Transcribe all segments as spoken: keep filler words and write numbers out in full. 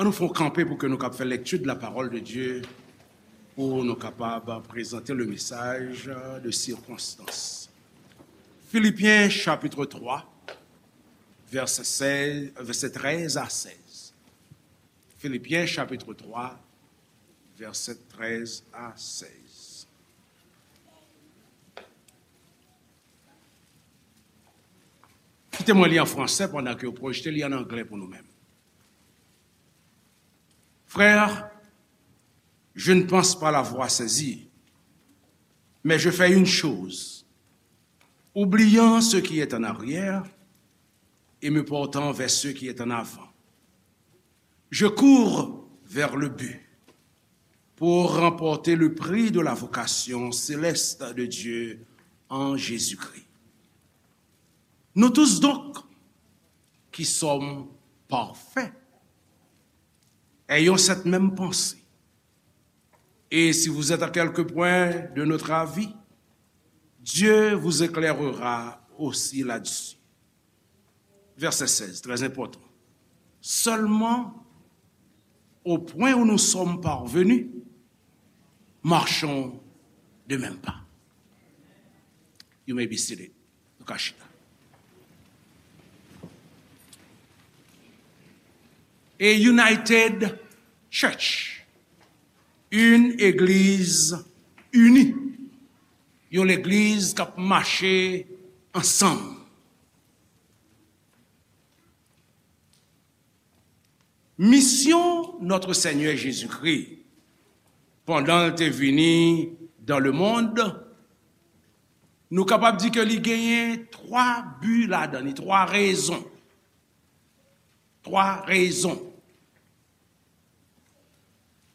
Nou fè yon kanpe pou ke nou kab fè lecture de la parole de Dieu, pou nou kapab prezante le message de circonstance. Philippiens chapitre trois, verset seize, verset treize à seize. Philippiens chapitre trois, verset treize à seize. Kite mwen li an fransè pandan ke yo pwojte li an anglè pou nou menm. Frères, je ne pense pas l'avoir saisi, mais je fais une chose, oubliant ce qui est en arrière et me portant vers ce qui est en avant. Je cours vers le but pour remporter le prix de la vocation céleste de Dieu en Jésus-Christ. Nous tous donc, qui sommes parfaits, ayons cette même pensée. Et si vous êtes à quelque point de notre avis, Dieu vous éclairera aussi là-dessus. Verset seize, très important. Seulement, au point où nous sommes parvenus, marchons de même pas. You may be seated. Nou ka chita. A united church. Une église unie. Yon legliz k ap mache ansanm. Misyon Notre Seigneur Jésus-Christ, pandan l te vini dans le monde, nou kapab di ke li genyen twa bi ladan li, twa rezon. Twa rezon.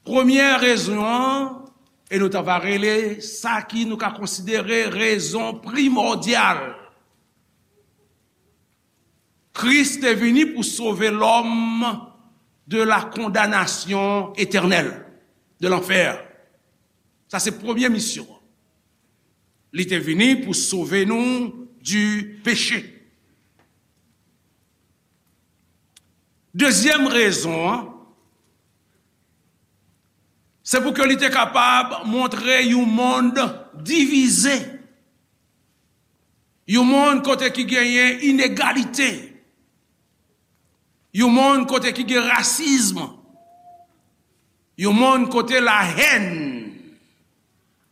Premyè rezon an, e nou ta va rele sa ki nou ka konsidere rezon primòdyal. Kris te vini pou sove lòm de la condamnation éternelle, de lanfè. Sa se premye misyon an. Li te vini pou sove nou du péché. Dezyèm rezon an, se pou ke li te kapab montre yon mond divize. Yon mond kote ki genyen inegalite. Yon mond kote ki gen rasism. Yon mond kote la hèn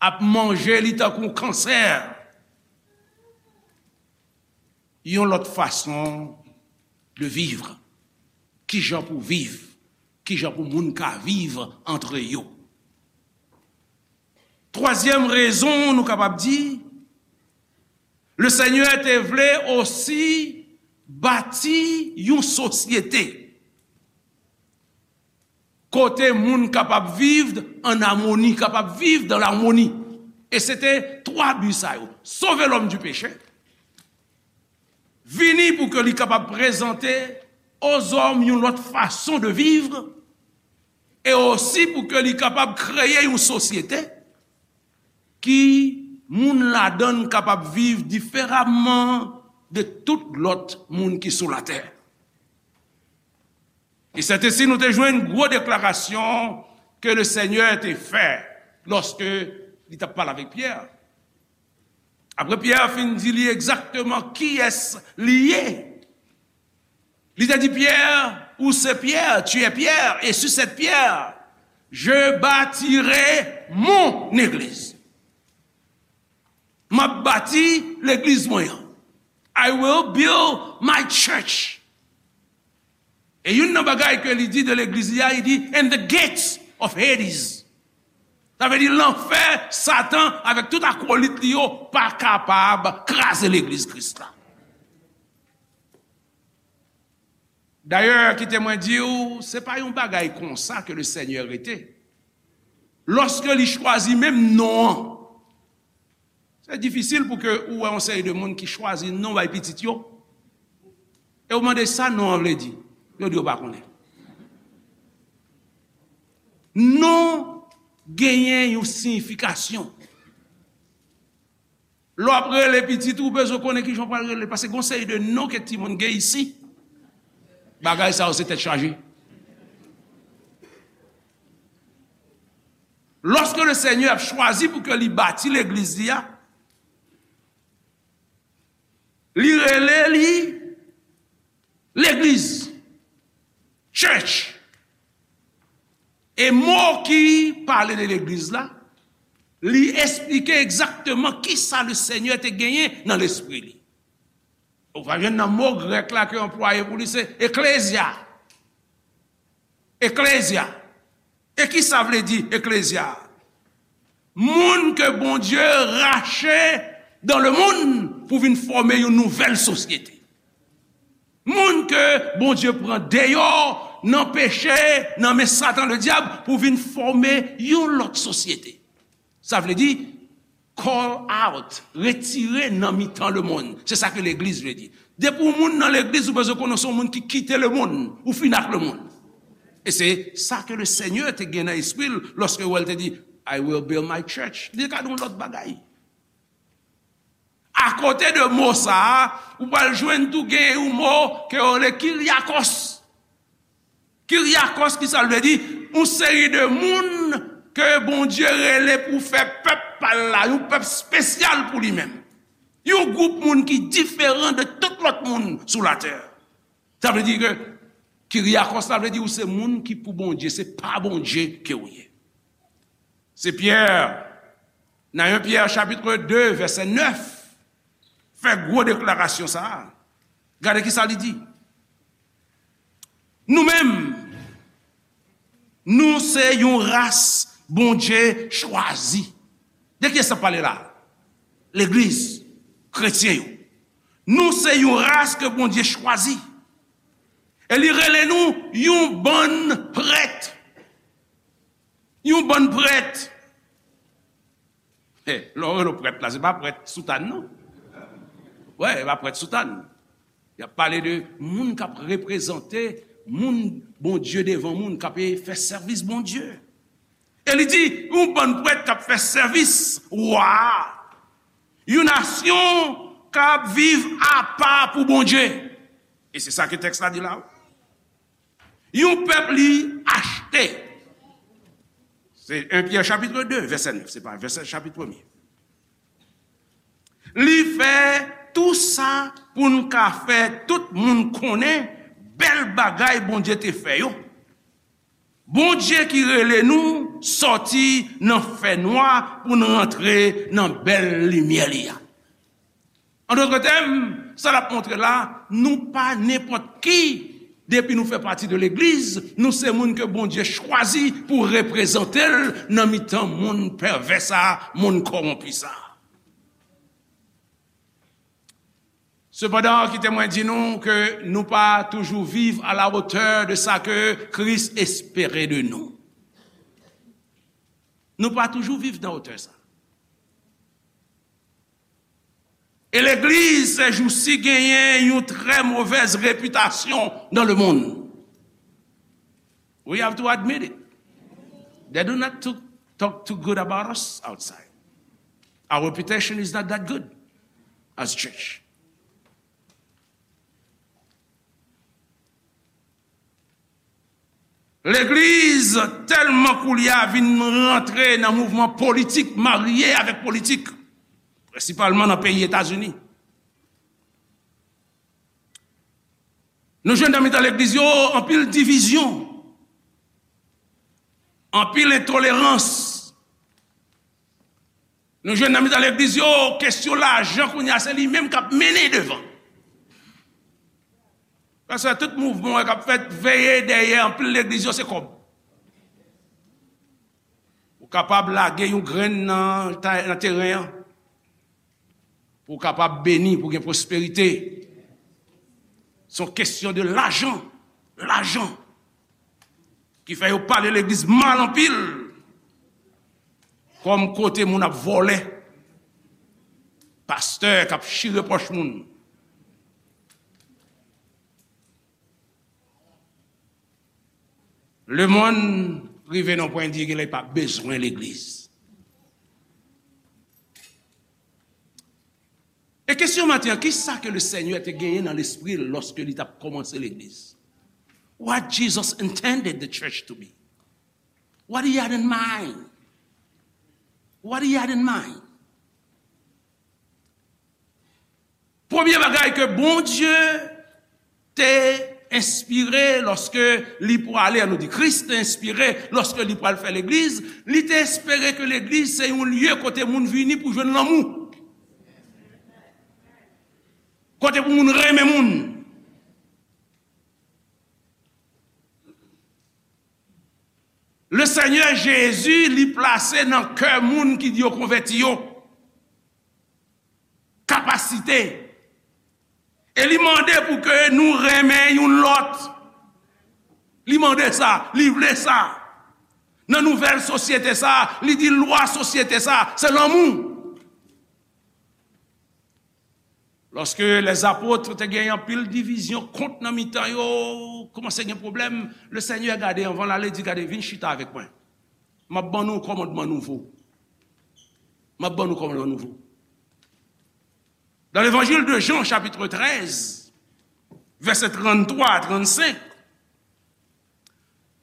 ap manje li tankou yon kansè. Yon lòt fason de vivre. Kijan pou viv? Kijan pou moun ka viv antre yo? Twazyèm rezon, nou kapab di, le Senyè te vle osi bati yon sosyete kote moun kapab viv an amoni, kapab viv dan lamoni. E se te twa bi sa yo. Sove lòm di peche, vini pou ke li kapab prezante ozòm yon lòt fason de viv, e osi pou ke li kapab kreye yon sosyete ki moun ladan l kapab viv diferaman de tout lòt moun ki sou latè. E sètesi nou te jwenn gwo deklarasyon ke le Senyè te fè lòske li t ap pale avèk Pyè. Apre Pyè fin di li egzakteman kiyès li ye, li te di Pyè, ou se Pyè, tu es Pierre, et sur cette pierre, je bâtirai mon église. M ap bati legliz mwen an. I will build my church. E youn nan bagay ke li di de legliz li a, li di, and the gates of Hades. Sa vle di lanfè, Satan avèk tout akolit li yo pa kapab kraze legliz Kris la. Dayè, kite mwen di w, se pa yon bagay konsa ke le Senyè rete. Lòske li chwazi menm non an, se difisil pou ke ou wè yon seri de moun ki chwazi non bay pitit yo, e ou mande sa non an vle di, yo di yo pa konnen. Non genyen yon siyifikasyon. Lè w ap rele pitit ou, ou bezwen konnen kijan w pral rele l, paske gon seri de non ke timoun gen isi. Bagay sa yo se tèt chaje. Lòske le Senyè ap chwazi pou ke li bati legliz li a, li rele li legliz, church. E mo ki pale de legliz la, li esplike egzakteman kisa le Senyè te genyen nan lespri li. Ou va jwenn nan mo grèk la ke anplwaye pou li, se eklezya. Eklezya. E ki sa vle di eklezya? Moun ke Bondye rache dans le monde pou vin fòme yon nouvèl sosyete. Moun ke Bondye pran deyò nan peche, nan men Satan Ledyab, pou vin fòme yon lòt sosyete. Sa vle di, call out, retire nan mitan lemonn. Se sa ke legliz vle di. Depi w moun nan legliz, ou bezwen konnen w se yon moun ki kite lemonn, ou fin ak lemonn. E se sa ke le Senyè te gen nan espri l lòske l te di, "I will build my church." Li te ka di yon lòt bagay. Akote de mo sa a, ou pral jwenn tou gen yon mo ke yo rele Kyriakos. Kyriakos, ki sa l vle di? Yon seri de moun ke Bondye rele pou fè pèp pa l la, yon pèp espesyal pou li menm. Yon gwoup moun ki diferan de tout lòt moun sou latè. Sa vle di ke Kyriakos la vle di ou se moun ki pou Bondye, se pa Bondye ke ou ye. Se Pyè, nan en Pyè chapit de, vèsè nèf, fè gwo deklarasyon sa a. Gade ki sa li di. Nou menm, nou se yon ras Bondye chwazi. De kiyès sa pale la? Legliz, kretyen yo. Nou se yon ras ke Bondye chwazi. E li rele nou yon bann prèt. Yon bann prèt. Hey, lè w rele w prèt la, se pa prèt soutàn, non. Wè, se pa prèt soutàn. Y ap pale de moun k ap reprezante moun Bondye devan moun, k ap fè sèvis Bondye. E li di, yon bann prèt k ap fè sèvis wa a. Yon nasyon k ap viv apa pou Bondye. E se sa ke tèks la di la. Yon pèp li achte. Se en Pyè chapit de, vèsè nèf, se pa vèsè chapit premye. Li fè tou sa pou n ka fè tout moun konnen bèl bagay Bondye te fè yo. Bondye ki rele nou sòti nan fènwa pou n rantre nan bèl limyè li a. An dòt tèm, sa l ap montre la, nou pa nenpòt ki. Depi nou fè pati de legliz, nou se moun ke Bondye chwazi pou reprezante l nan mitan monn pèvè sa a, monn kòwonpi sa a. Sepandan, kite mwen di nou ke nou pa toujou viv à la hauteur de sa ke Kris espere de nou. Nou pa toujou viv nan wotè sa. E legliz, sèjousi, genyen yon trè movèz repitasyon dans le monde. We have to admit it. They do not to talk too good about us outside. Our reputation is not that good as church. Legliz tèlman koulye a vin rantre nan mouvman politik, marye avèk politik, prensipalman nan peyi Etazini. Nou jwenn nan mitan legliz yo anpil divizyon, anpil entolerans. Nou jwenn nan mitan legliz yo, kesyon lajan kounye a se li menm k ap mennen devan. Paske tout mouvman k ap fèt, veye dèyè anpil legliz yo se kòb. Ou kapab lage yon grenn nan ta-, nan teren an pou w kapab beni, pou w gen pwosperite. Se yon kesyon de lajan, lajan. Ki fè yo pale legliz mal anpil. Kòm kote moun ap vòlè. Pastè k ap chire pòch moun. Lemonn rive nan pwen di genlè pa bezwen legliz. E kesyon maten an, ki sa ke le Senyè te genyen nan lespri l lòske li t ap kòmanse legliz? What Jesus intended the church to be? What he had in mind? What he had in mind? Premye bagay ke Bondye te enspire lòske li pwale, an nou di Kris te enspire lòske li pral fè legliz, li te espere ke legliz se yon lye kote moun vini pou jwenn lanmou. Kote pou moun renmen moun. Le Senyè Jezi, li plase nan kè moun ki yo konvèti yo kapasite. E li mande pou ke nou renmen youn lòt. Li mande sa, li vle sa. Nan nouvèl sosyete sa, li di lwa sosyete sa, se lanmou. Lòske lèzapot te gen anpil divizyon, kont nan mitan yo, kòmanse gen pwoblèm, le Senyè gade anvan l ale, di, "Gade, vin chita avèk mwen. M ap ban nou kòmandman nouvo. M ap ban nou kòmandman nouvo." Dans l'évangile de Jean, chapitre treize, verset trente-trois à trente-cinq,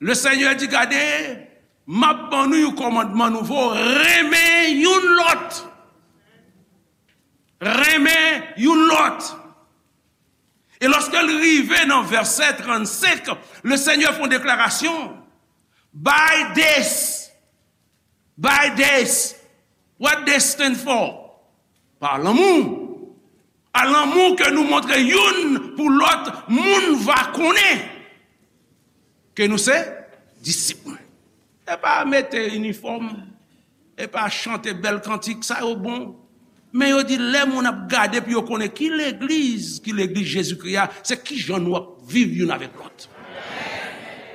le Senyè di, "Gade, m ap ban nou yon kòmandman nouvo, renmen youn lòt." Renmen youn lòt. E lòske l rive nan vèsè trannsenk, le Senyè fè yon deklarasyon. By this, by this, what this stand for? Pa lanmou. A lanmou ke nou montre youn pou lòt, moun va konnen ke nou se disip mwen. E pa mete inifòm, e pa chante bèl kantik, sa yo bon. Men yo di lè moun ap gade pou yo konnen ki legliz, ki legliz Jezikri a, se kijan nou ap viv youn avèk lòt.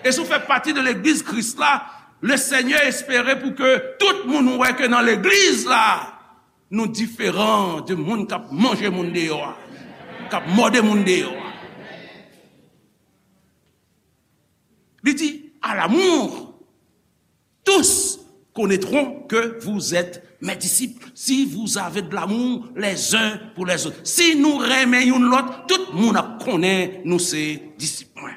E si w fè pati de legliz Kris la, le Senyè espere pou ke tout moun wè ke nan legliz la, nou diferan de moun k ap manje moun deyò a, k ap mòde moun deyò a. Li di, à l'amour, tous connaîtront que vous êtes mes disciples, si vous avez de l'amour les uns pour les autres. Si nou renmen youn lòt, tout moun ap konnen nou se disip mwen.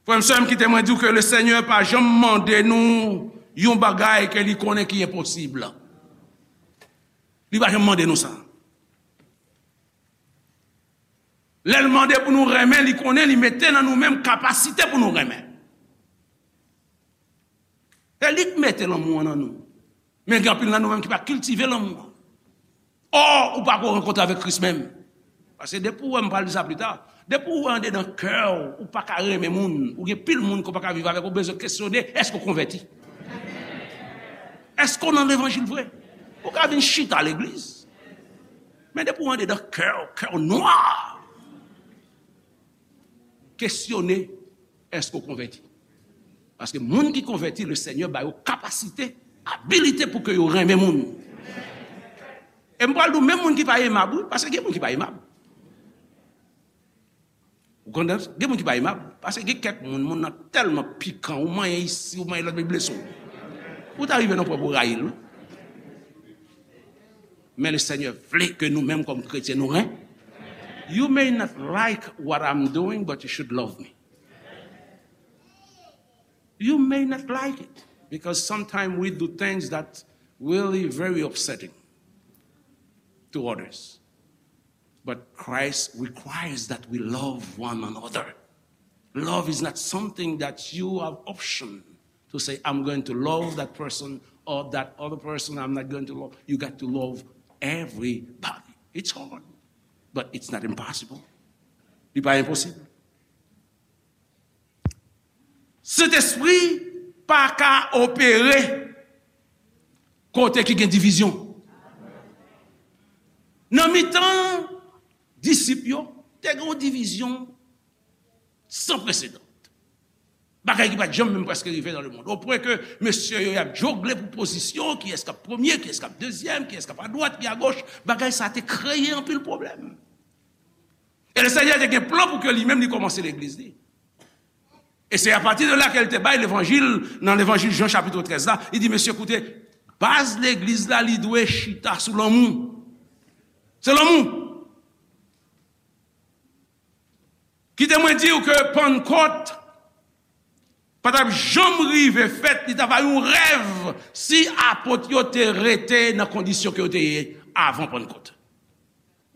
Frè m, sè m, kite mwen di w ke le Senyè pa janm mande nou yon bagay ke li konnen ki enposib. Li pa janm mande nou sa. Lè l mande pou nou renmen, li konnen li mete nan nou menm kapasite pou nou renmen. Se li k mete lanmou an nan nou. Men gen anpil nan nou menm ki pa kiltive lanmou an. Ò, ou pa ko rankontre avèk Kris menm. Paske depi w wè, m pral di sa pita, depi w wè andedan kè w, ou pa ka renmen moun, ou gen pil moun ke w pa ka viv avèk, ou bezwen kesyone, èske w konvèti? Èske w nan levanjil vre? Ou ka vin chita legliz. Men depi w andedan kè w, kè w nwa. Kesyone, èske w konvèti? Paske moun ki konvèti, le Senyè ba yo kapasite, abilite pou ke yo renmen moun. E m pral di w, menm moun ki pa emab, wi, paske gen moun ki pa emab. Ou konprann? Gen moun ki pa emab, paske gen kèk moun, moun nan tèlman pikan, ou manyen isi, ou manyen lòt, li blese w. Ou ta rive nan pwen pou w rayi l, wi. Men le Senyè vle ke nou menm kòm kretyen, nou ren. You may not like what I'm doing, but you should love me. You may not like it, because sometimes we do things that really very upsetting to others. But Christ requires that we love one another. Love is not something that you have option to say, "I'm going to love that person or that other person, I'm not going to love." You got to love everybody. It's hard, but it's not impossible. Li pa enposib. Sentespri pa ka opere kote ki gen divizyon. Nan mitan disip yo, te gen yon divizyon san presedan. Bagay ki pa t janm menm prèske rive nan lemonn. Opwen ke mesye yo y ap jogle pou pozisyon, kiyès k ap premye, kiyès k ap dezyèm, kiyès k ap adwat, ki agoch, bagay sa te kreye anpil pwoblèm. E le Senyè te gen plan pou ke li menm li kòmanse legliz li. E se apati de la ke l te bay levanjil, nan levanjil Jan chapit trèz la, li di, "Mesye, koute, baz legliz la, li dwe chita sou lanmou." Se lanmou. Kite mwen di w ke Pannkòt, pa t ap janm rive fèt, li t ap yon rèv si apot yo te rete nan kondisyon ke yo te ye avan Pannkòt.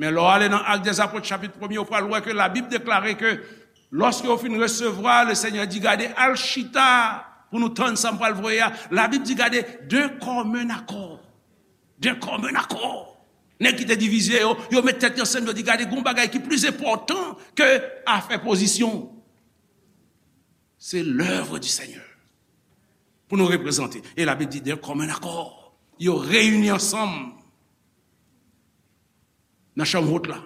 Men lè w ale nan Actes des Apôtres, chapit premye, ou pral wè ke Labib deklare ke lòske yo fin resevwa, Lesenyè di, "Gade, al chita pou nou tann sa m pral voye a." Labib di, "Gade, d'un commun accord." D'un commun accord. Nèg ki te divize yo, yo met tèt yo ansanm, yo di, "Gade, gon bagay ki plis enpòtan ke afè pozisyon. C'est l'œuvre du Seigneur. Pou nou reprezante." E Labib di, "D'un commun accord." Yo reyini ansanm nan chanm wot la.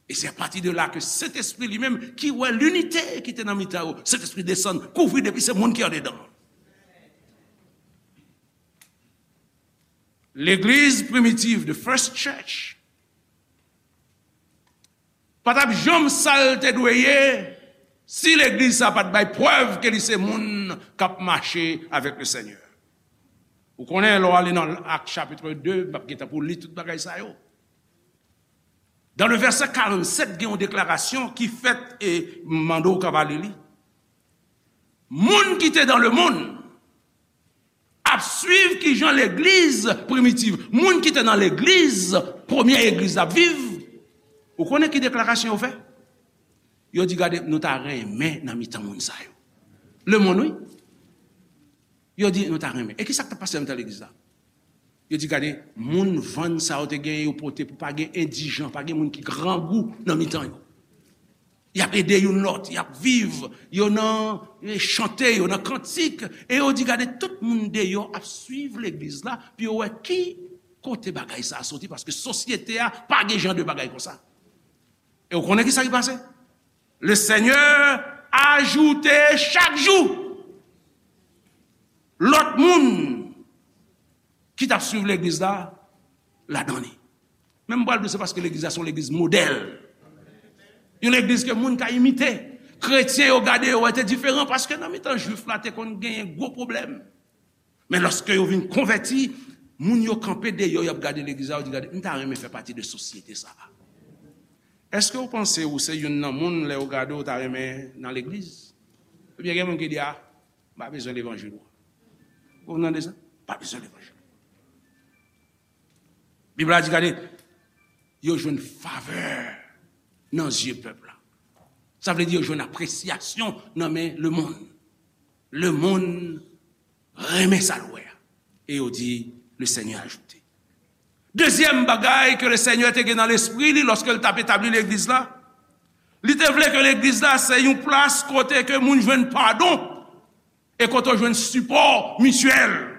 E se apati de la ke Sentespri li menm, ki wè linite ki te nan mitan yo, Sentespri desann, kouvri depi se moun ki andedan. Legliz primitiv, the first church, pa t ap janm sa l te dwe ye si legliz sa pa t bay prèv ke li se moun k ap mache avèk Lesenyè. Ou konnen, lè w ale nan Ak chapit de, m ap gentan pou li tout bagay sa yo. Dans le verset quarante-sept, gen yon deklarasyon ki fèt, e m mande w ka va li li. Moun ki te dans le monde ap swiv kijan legliz primitiv, moun ki te nan legliz, premye egliz ap viv. Ou konnen ki deklarasyon yo fè? Yo di, "Gade, nou ta renmen nan mitan moun sa yo." Lemonn, wi. Yo di, "Nou ta renmen." E ki sa k t ap pase nan mitan legliz la? Yo di, "Gade, moun vann sa yo te gen, yo pote pou pa gen endijan, pa gen moun ki grangou nan mitan yo." Y ap ede youn lòt, y ap viv, yo nan, eh, chante, yo nan kantik, e yo di, "Gade, tout moun deyò ap swiv legliz la, pou yo wè ki kote bagay sa a soti, paske sosyete a pa gen jan de bagay konsa." E w konnen ki sa ki pase? Lesenyè ajoute chak jou lòt moun ki t ap swiv legliz la ladan li. Men m pral di w, se paske legliz la se yon legliz modèl. Yon legliz ke moun ka imite. Kretyen yo gade yo wè te diferan, paske nan mitan Jwif la te konn genyen gwo pwoblèm. Men lòske yo vin konvèti, moun yo kanpe deyò, y ap gade legliz la, yo di, "Gade, m ta renmen fè pati de sosyete sa a." Èske w panse ou se youn nan moun, lè yo gade w, ta renmen nan legliz? Ebyen, gen moun ki di, "A, m pa bezwen levanjil ou." Ou tande sa? Pa bezwen levanjil. Bib la di, gade, yo jwenn favè nan zye pèp la. Sa vle di yo jwenn apresyasyon nan men lemonn. Lemonn renmen sa l wè a. E yo di, "Le Seigneur a ajouté." Dezyèm bagay ke Lesenyè te gen nan lespri li lòske l t ap etabli legliz la, li te vle ke legliz la se yon plas kote ke moun jwenn padon e kote w jwenn sipò mityèl.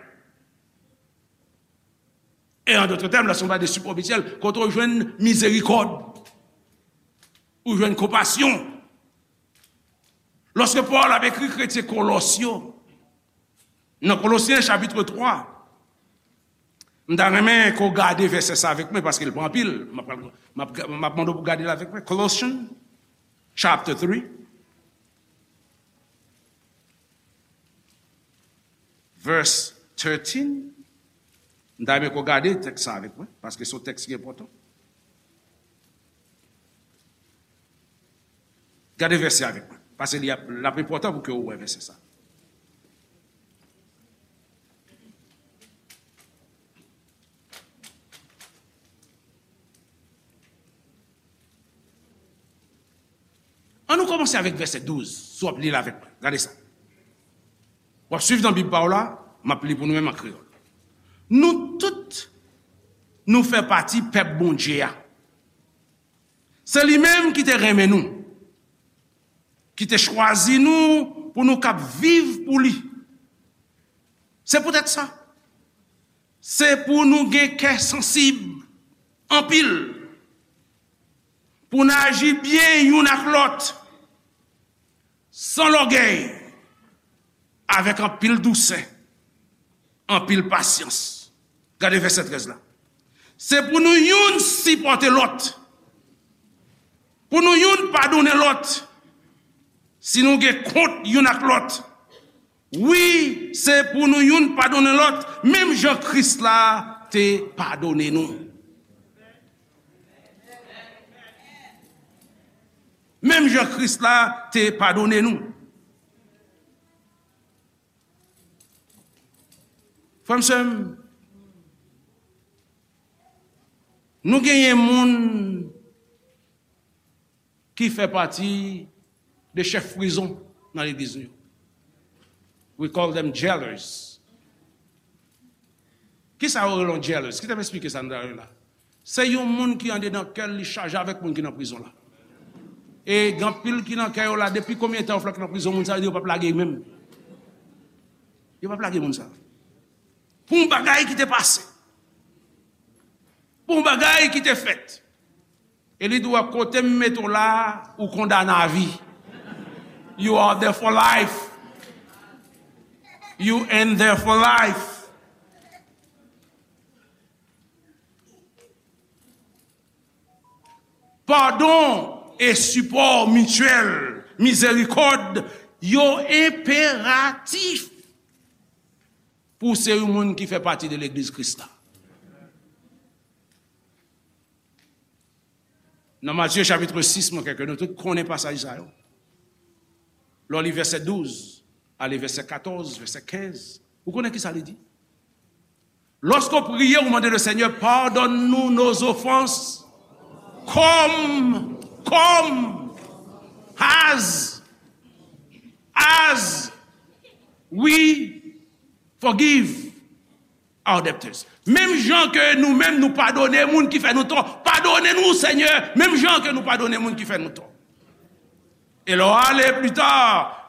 E an dòt tèm, lè se yon bagay de sipò mityèl, kote w jwenn mizerikòd, ou jwenn konpasyon. Lòske Pòl ap ekri kretyen Kolòs yo, nan Kolosyen chapit twa, m ta renmen ke w gade vèsè sa avèk mwen, paske l pa anpil. M ap, m ap, m ap mande w pou gade l avèk mwen. Colossians chapter three. Verse thirteen. M ta renmen ke w gade tèks sa avèk mwen, paske se yon tèks ki enpòtan. Gade vèsè avèk mwen, paske li ap, l ap enpòtan pou ke w wè vèsè sa. Ann nou kòmanse avèk vèsè douz, si w ap li l avèk mwen. Gade sa. W ap swiv nan Bib pa w la, m ap li pou nou menm an kreyòl. Nou tout, nou fè pati pèp Bondye a. Se li menm ki te renmen nou, ki te chwazi nou pou nou kab viv pou li. Se poutèt sa, se pou nou gen kè sansib anpil, pou n aji byen youn ak lòt, san lògèy, avèk anpil dousè, anpil pasyans. Gade vèsè trèz la. Se pou nou youn sipòte lòt, pou nou youn padonnen lòt, si nou gen kont youn ak lòt. Wi, se pou nou youn padonnen lòt, menm jan Kris la te padonnen nou. Menm jan Kris la te padonnen nou. Frè m, sè m, nou genyen moun ki fè pati de chèf prizon nan legliz nou yo. We call them jailers. Kisa yo rele yon jailers? Kite m esplike sa nan la. Se yon moun ki andedan kè l, li chaje avèk moun ki nan prizon la. E gen anpil ki nan kè yo la, depi konbyen tan yo fè k nan prizon, moun sa yo di yo p ap lage menm. Yo p ap lage moun sa. Pou yon bagay ki te pase. Pou yon bagay ki te fèt. E li di w, kote m mete w la, ou kondane a vi. You are there for life. You in there for life. Padon e sipò mityèl, mizerikòd, yo enperatif pou w se yon moun ki fè pati de legliz Kris la. Nan Matye chapit sis, mwen kwè ke nou tout konnen pasaj sa yo. Lè w li vèsè douz, ale vèsè katòz, vèsè kenz, ou konnen kisa li di? Lorsqu'on prie, on demande le Seigneur, pardonne-nous nos offenses, comme, comme, as, as we forgive our debtors. Menm jan ke nou menm nou padone moun ki fè nou tò, padone nou, Senyè, menm jan ke nou padone moun ki fè nou tò. E lè w ale pli ta,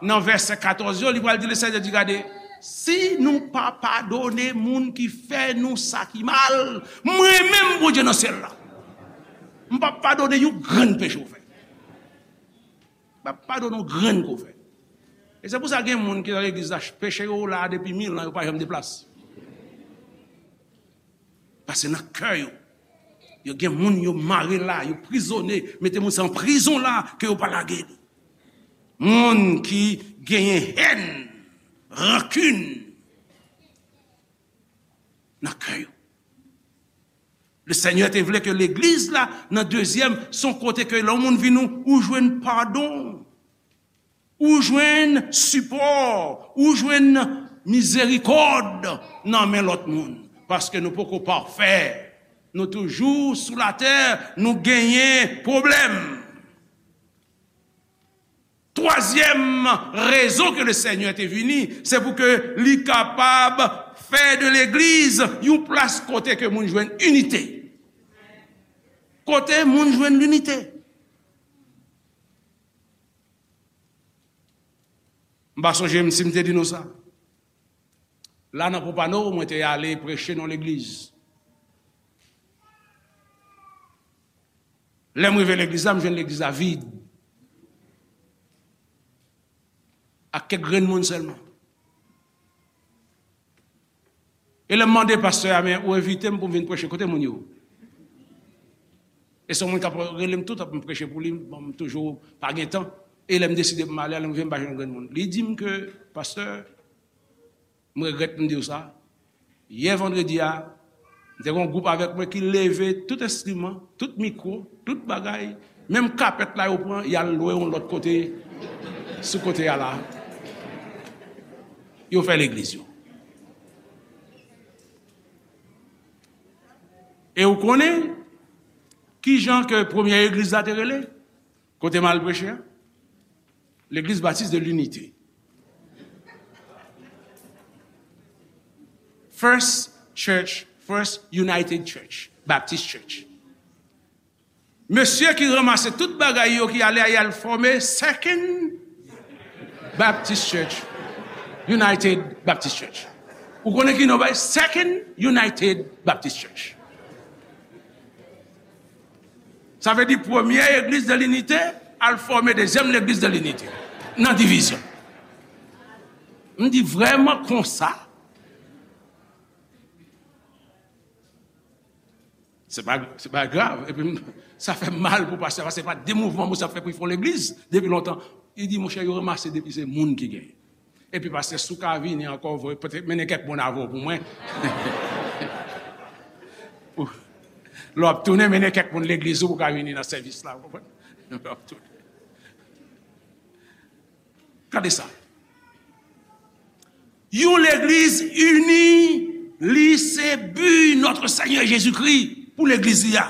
nan vèsè katòz yo, li pral di, le Senyè di, gade, si nou pa padone moun ki fè nou sa ki mal, mwen menm, Bondye nan syèl la, m p ap padone yon grenn peche w fè. M p ap padone yon grenn ke w fè. E se pou sa gen moun ki nan legliz la, peche yo la depi mil an, yo pa janm deplase. Paske nan kè yo, yo gen moun yo mare la, yo prizone, mete moun sa an prizon la, ke yo pa lage li. Moun ki genyen hèn, rankin nan kè yo. Le Senyè te vle ke legliz la, nan dezyèm, se yon kote ke lè yon moun vin ou, ou jwenn padon. Ou jwenn sipò, ou jwenn mizerikòd nan men lòt moun. Paske nou poko pafè. Nou toujou sou latè, nou genyen pwoblèm. Twazyèm rezon ke le Senyè te vini, se pou ke li kapab fè de legliz yon plas kote ke moun jwenn inite. Kote moun jwenn linite. M pa sonje m si m te di nou sa. La nan Pompano, mwen te ale preche nan legliz. Lè m rive legliz la, m jwenn legliz la vid. Ak kèk grenn moun sèlman. E lè m mande pastè a, men ou envite m pou m vin preche, kote moun yo? E se yon moun k ap rele m tout ap m preche pou li, bon, m toujou pa gen tan. E lè m deside pou m ale, lè m rive, m pa jwenn grenn moun. Li di m ke, pastè, m regrèt m di w sa. Yè vandredi a, m te gen yon gwoup avèk mwen ki leve tout enstriman, tout mikwo, tout bagay, menm kapèt la yo pran, y al lwe yon lòt kote, sou kote a la. Yo fè legliz yo. E ou konnen ki jan ke premyè legliz la te rele? Kote m al preche a? Legliz Batis de Linite. First Church, First United Church, Baptist Church. Mesye ki ranmase tout bagay yo ki ale a, y al fòme Second Baptist Church, United Baptist Church. Ou konnen ki non bay? Second United Baptist Church. Sa vle di premye legliz de linite al fòme dezyèm legliz de linite nan divizyon. M di vrèman konsa? Se pa, se pa grav. Epi m, sa fè m mal pou pastè, paske se pa de mouvman moun sa fè pou l fè yon legliz depi lontan. Li di, monchè, yo ranmase depi se moun ki genyen. Epi pastè, si w ka vini ankò, voye, pote, mennen kèk moun avè w pou mwen. Pou, lè w ap tounen, mennen kèk moun legliz ou pou w ka vini nan sèvis la, w konprann? Lè w ap tounen. Gade sa. Yon legliz ini Li se bi Notre Seigneur Jésus-Christ pou legliz li a.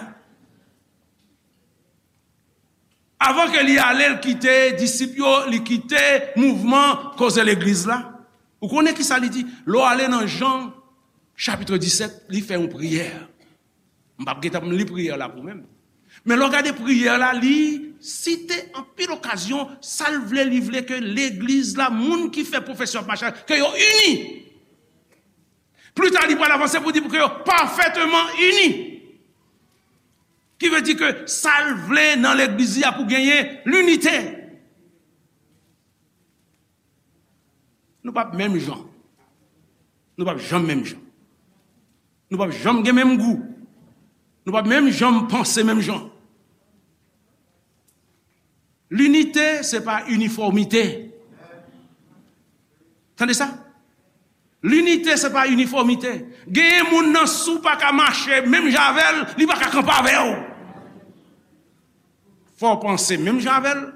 Avan ke li ale, l kite disip yo, li kite mouvman koze legliz la. Ou konnen ki sa li di? Lè w ale nan Jan, chapit disèt, li fè yon priyè. M p ap gentan li priyè la pou mwen. Men lè w gade priyè la, li site anpil okazyon, sa l vle, li vle ke legliz la, moun ki fè pwofesyon ap mache, ke yo ini. Pli ta, li pral avanse pou di pou ke yo pafèteman ini. Ki vle di ke sa l vle nan legliz li a pou genyen linite. Nou p ap menm jan. Nou p ap janm menm jan. Nou p ap janm gen menm gou. Nou p ap menm janm panse menm jan. Linite, se pa inifòmite. Tande sa? Linite, se pa inifòmite. Genyen moun nan, si w pa ka mache menm jan avè l, li pa ka kanpe avè w. Fò w panse menm jan avè l,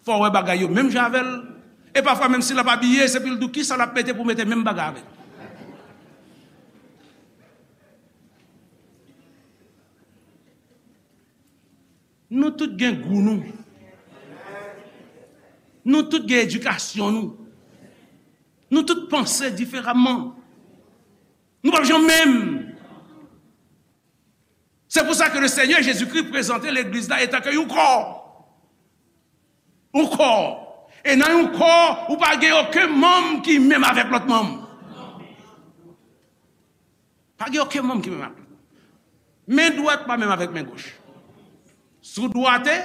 fò w wè bagay yo menm jan avè l. E pafwa, menm si l ap abiye, se pou l di w kisa l ap mete pou mete menm bagay avè l. Nou tout gen gou nou. Nou tout gen edikasyon nou. Nou tout panse diferaman. Nou p ap janm menm. Se pou sa ke le Senyè Jezikri prezante legliz la etan ke yon kò. Yon kò. E nan yon kò, ou pa gen okenn manm ki menm avèk lòt manm. Pa gen okenn manm ki menm avèk lòt. Men dwat pa menm avèk men goch. Si w dwate,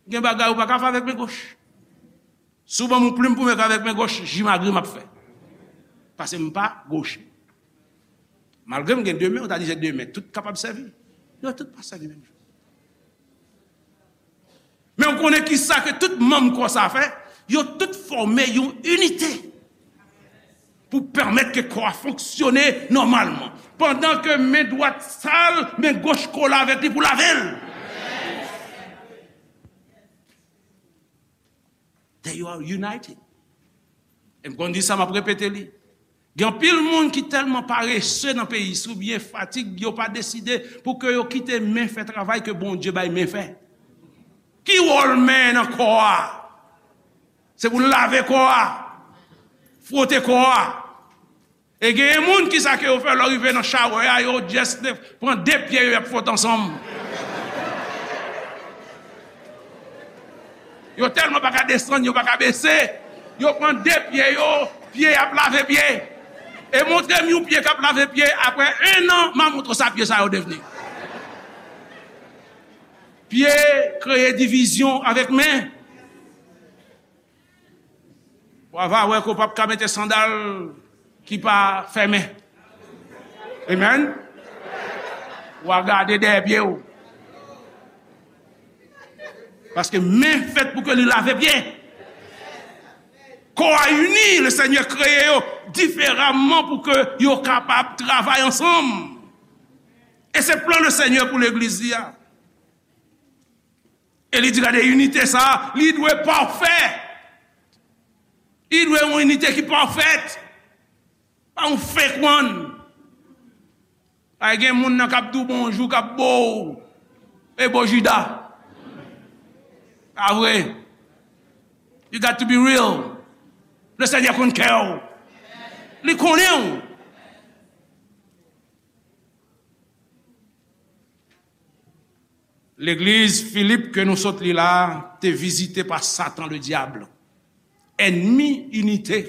gen bagay ou pa ka fè avèk men goch. Si w ban m yon plim pou m ekri avèk men goch, jimagri m ap fè. Paske m pa goche. Malgre m gen de men, ou ta di se de men, tout kapab sèvi. Yo tout pa sèvi menm jan. Men w konnen kisa ke tout manm kò sa fè? Yo tout fòme yon inite pou pèmèt ke kò a fonksyone nòmalman. Pandan ke men dwat sal, men goch kole avèk li pou lave l. They are united. E m konn di sa, m ap repete li. Gen anpil moun ki tèlman parese nan peyi, oubyen fatig, yo pa deside pou ke yo kite men fè travay ke Bondye bay men fè. Ki wòl men nan kò a? Se pou l lave kò a, fwote kò a. E genyen moun, kisa ke yo fè lè yo rive nan shower a, yo just pran de pye yo, y ap fwote ansanm. Yo tèlman pa ka desann, yo pa ka bese, yo pran de pye yo, pye y ap lave pye. E montre m yon pye k ap lave pye, apre en an, m a montre w sa pye sa yo devni. Pye kreye divizyon avèk men. W a va wè ke w p ap ka mete sandal ki pa fèmen. Amen. W a gade dèyè pye w. Paske men fèt pou ke li lave pye. Kò a ini, le Senyè kreye yo diferaman pou ke yo kapab travay ansanm. E se plan le Senyè pou legliz li a. E li di, gade, inite sa a, li dwe pafè. Li dwe yon inite ki pafèt. Pa yon fake one. Ay gen moun nan k ap di w bonjou, k ap bo w. E bo Jida. Pa vre. You got to be real. Le Senyè konn kè w. Li konnen w. Legliz Filip ke nou sot li la te vizite pa Satan Ledyab, ènmi inite,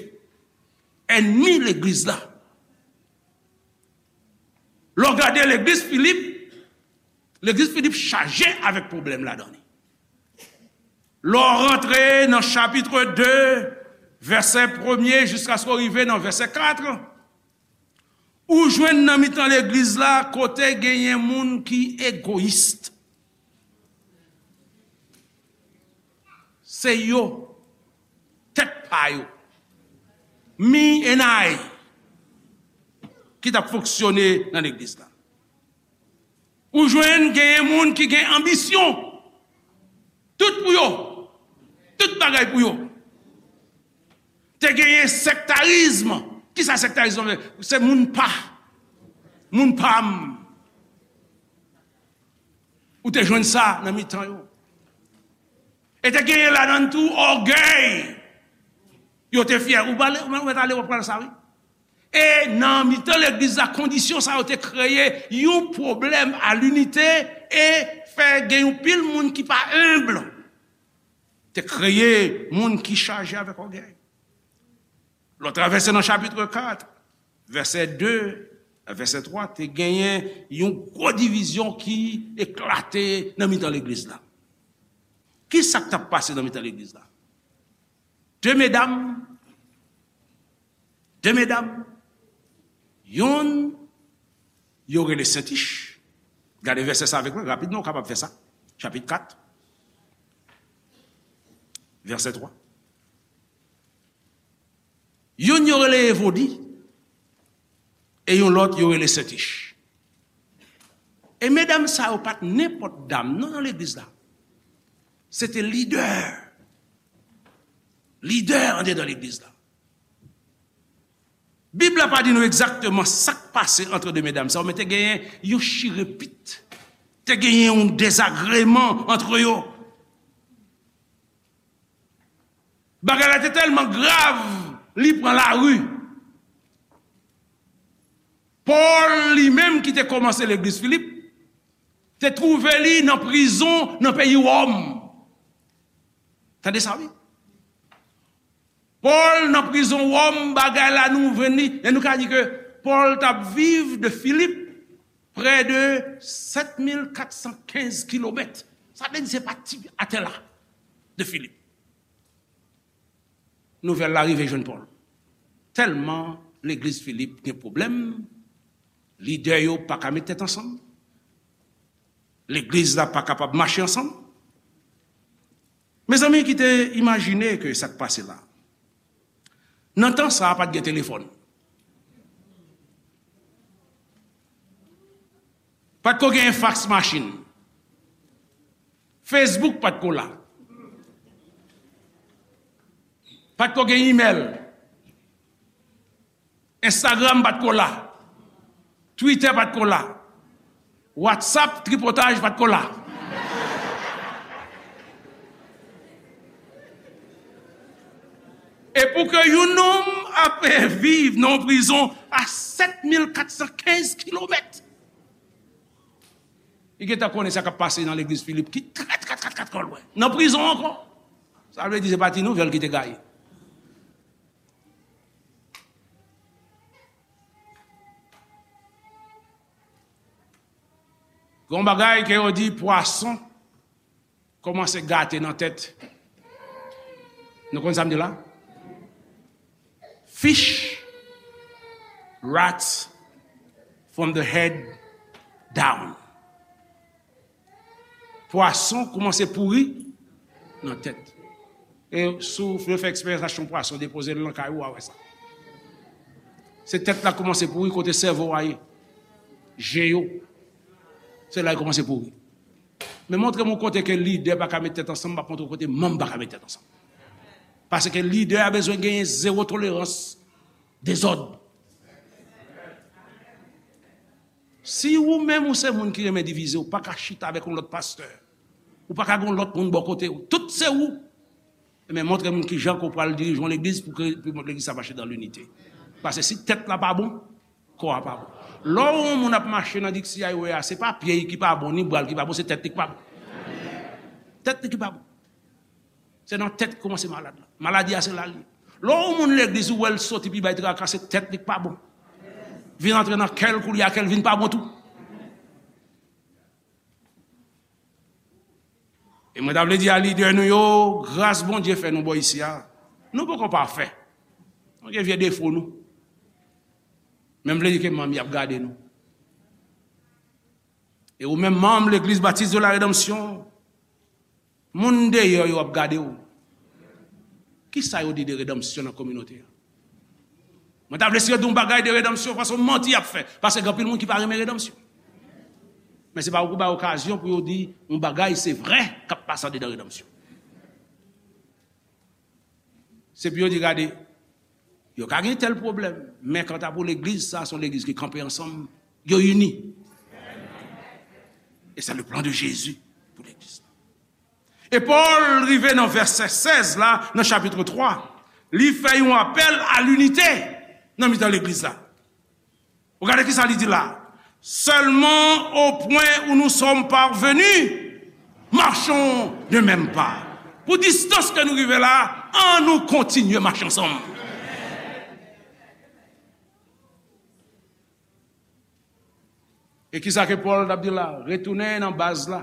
ènmi legliz la. Lè w gade legliz Filip, legliz Filip chaje avèk pwoblèm ladan li. Lè w rantre nan chapit de, vèsè premye jiskaske w rive nan vèsè kat, ou jwenn nan mitan legliz la kote genyen moun ki egoyis. Se yo, tèt pa yo, me and I, ki t ap fonksyone nan legliz la. Ou jwenn genyen moun ki gen anbisyon. Tout pou yo. Tout bagay pou yo. Te genyen sektarizm. Kisa sektarizm nan vle? Se moun pa. Moun pa m. Ou te jwenn sa nan mitan yo. E te genyen ladan l tou ògèy. Yo te fyè. Ou pale, ou mèt ale, w ap pral sa, wi. E nan mitan legliz la, kondisyon sa yo te kreye yon pwoblèm a linite e fè gen yon pil moun ki pa enb. Te kreye moun ki chaje avèk ògèy. Lè w travèse nan chapit kat, vèsè de, vèsè twa, te genyen yon gwo divizyon ki eklate nan mitan legliz la. Ki sa k t ap pase nan mitan legliz la? De medam, de medam, yonn yo rele Sentich. Gade vèsè sa avèk mwen, rapidman, ou kapab fè sa. Chapit kat, vèsè twa. Youn yo rele Evodi, e yon lòt yo rele Sentich. E medam sa yo pa t nenpòt dam, non, nan legliz la. Se te lidè. Lidè andedan legliz la. Bib la pa di nou egzakteman sa k pase ant de medam sa yo, men te genyen yon chirepit. Te genyen yon dezagreman ant yo. Bagay la te tèlman grav, li pran lari. Pòl, li menm ki te kòmanse legliz Filip, te twouve li nan prizon nan peyi Wòm. Tande sa, wi. Pòl nan prizon Wòm, bagay la nou jwenn li, e nou ka di ke Pòl t ap viv de Filip prè de sèt mil kat san kenz kilomèt. Sa vle di se pa ti atè la de Filip. Nouvèl la rive jwenn Pòl. Tèlman legliz Filip gen pwoblèm, lidè yo pa ka met tèt ansanm, legliz la pa kapab mache ansanm. Mezanmi, kite imajine ke sa k pase la. Nan tan sa a, pa t gen telefòn. Pa t ko gen fax machine. Facebook pa t ko la. Pa t ko gen imèl. Instagram pa t ko la. Twitter pa t ko la. WhatsApp tripotaj pa t ko la. E pou ke yon nonm ap viv nan yon prizon a sèt mil kat san kenz kilomèt, li gentan konnen sa k ap pase nan legliz Filip, ki trè, trè, trè, trè, trè lwen. Nan prizon ankò. Sa vle di se pa ti nouvèl ki te gaye. Gon bagay ke yo di pwason kòmanse gate nan tèt. Nou konn sa m di la? Fish rots from the head down. Pwason kòmanse pouri nan tèt. E si w vle fè eksperyans, achte yon pwason, depoze l nan kay ou, w a wè sa. Se tèt la kòmanse pouri, kote sèvo a ye. Je yo. Se la l kòmanse pouri. Men montre m yon kote ke lidè pa ka met tèt ansanm, m ap montre w kote manm pa ka met tèt ansanm. Paske lidè a bezwen genyen zewo tolerans dezòd. Si ou menm ou se moun ki renmen divize, ou pa ka chita avèk yon lòt pastè. Ou pa ka gen yon lòt moun bò kote w. Tout se ou. Ebyen, montre moun kijan ke w pral dirije yon legliz pou ke, pou legliz sa mache dan linite. Paske si tèt la pa bon, kò a pa bon. Lè w wè yon moun ap mache nan diksi highway a, se pa pye l ki pa bon, ni bra l ki pa bon, se tèt li ki pa bon. Tèt li ki pa bon. Se nan tèt ki kòmanse malad la. Maladi a se la l ye. Lè w wè yon moun legliz, ou wè l soti pi bay traka, se tèt li ki pa bon. Vin antre nan kè l, koulye a kè l vin pa bon tou. E mwen ta vle di a lidè nou yo, gras Bondye fè nou bò isi a. Nou poko pafè. Nou gen vye defo nou. Men m vle di ke manm y ap gade nou. E ou menm manm Legliz Batis de la Redanmsyon, moun deyò yo ap gade w. Kisa yo di de redanmsyon nan kominote a? Mwen ta vle si yo di yon bagay de redanmsyon, paske manti y ap fè. Paske gen anpil moun ki pa renmen redanmsyon. Men se pa ou pou bay okazyon pou yo di yon bagay se vrè k ap pase andedan redanmsyon. Se pou yo di, gade, Yo ka gen tèl pwoblèm, men kanta pou legliz, sa se yon legliz ki kanpe ansanm, yo ini. E se le plan de Jésus pou legliz la. E Pòl rive nan vèsè sèz la, nan chapit twa, li fè yon apèl a linite nan mitan legliz la. Ou gade ki sa li di la. Seulement au point où nous sommes parvenus, marchons d'un même pas. Pou distans ke nou rive la, an nou kontinye mache ansanm. E ki sa ke Pòl t ap di la? Retounen nan baz la.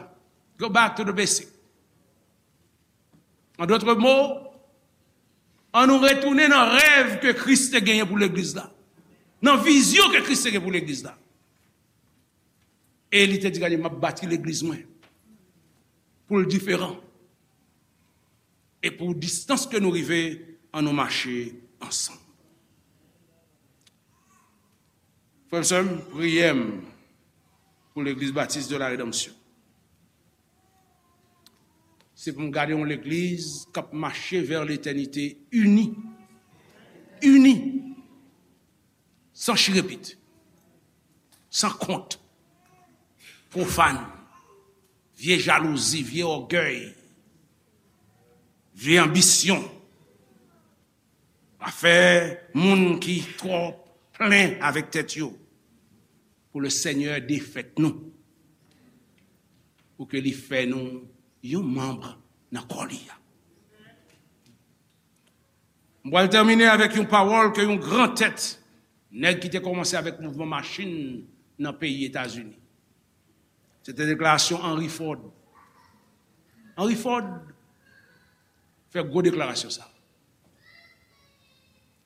Go back to the basic. An dòt mo, an nou retounen nan rèv ke Kris te genyen pou legliz la. Nan vizyon ke Kris te gen pou legliz la. E li te di, "Gade, m ap bati legliz mwen pou l diferan. E pou distans ke nou rive, an nou mache ansanm." Frè m, sè m, priyè m pou Legliz Batis de la Redanmsyon, se pou m gade yon legliz k ap mache vè letènite ini. Ini. San chirepit. San kont. Pwofàn. Vye jalouzi, vye ògèy. Vye anbisyon. Afè moun ki twò plen avèk tèt yo. Pou le Senyè defèt nou. Pou ke li fè nou yon manm nan kò li a. M pral tèmine avèk yon pawòl ke yon gran tèt, nèg ki te kòmanse avèk mouvman machin nan peyi Etazini. Se te deklarasyon Henry Ford. Henry Ford fè gwo deklarasyon sa.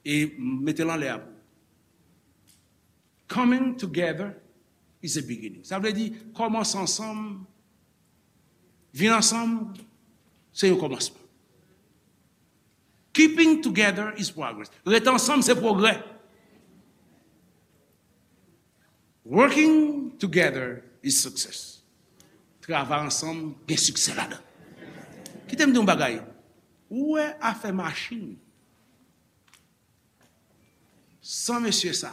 E m mete l anlè a pou. Coming together is a beginning. Sa vle di, kòmanse ansanm, vin ansanm, se yon kòmansman. Keeping together is progress. Ret ansanm, se pwogrè. Working together is success. Travay ansanm, gen siksè ladan. Kite m di yon bagay. Ou wè afè machin. San mesye sa,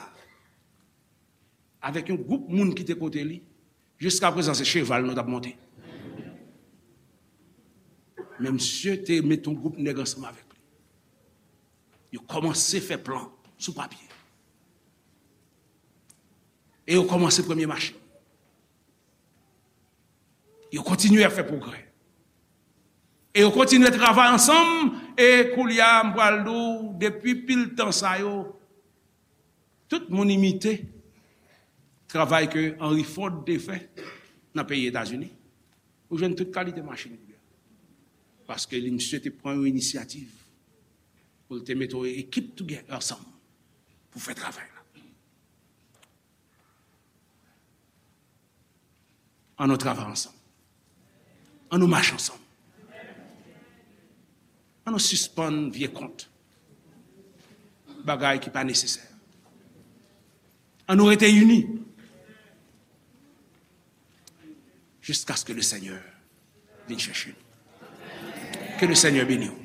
avèk yon gwoup moun ki te kote li, jiska prezan se cheval nou t ap monte. Men misye te met yon gwoup nèg ansanm avèk li. Yo kòmanse fè plan sou papye. E yo kòmanse premye machin. Yo kontinye ap fè pwogrè. E yo kontinye travay ansanm, e koulye a, m pral di w, depi pil tan sa yo, tout moun imite travay ke Henry Ford te fè nan peyi Etazini. Ou jwenn tout kalite machin koulye a. Paske li, misye te pran yon inisyativ pou l te mete yon ekip together ansanm pou fè travay la. An nou travay ansanm. An nou mache ansanm. An nou sispann vye kont. Bagay ki pa nesesè. An nou rete ini. Jiskaske le Senyè vin chèche nou. Ke le Senyè beni w.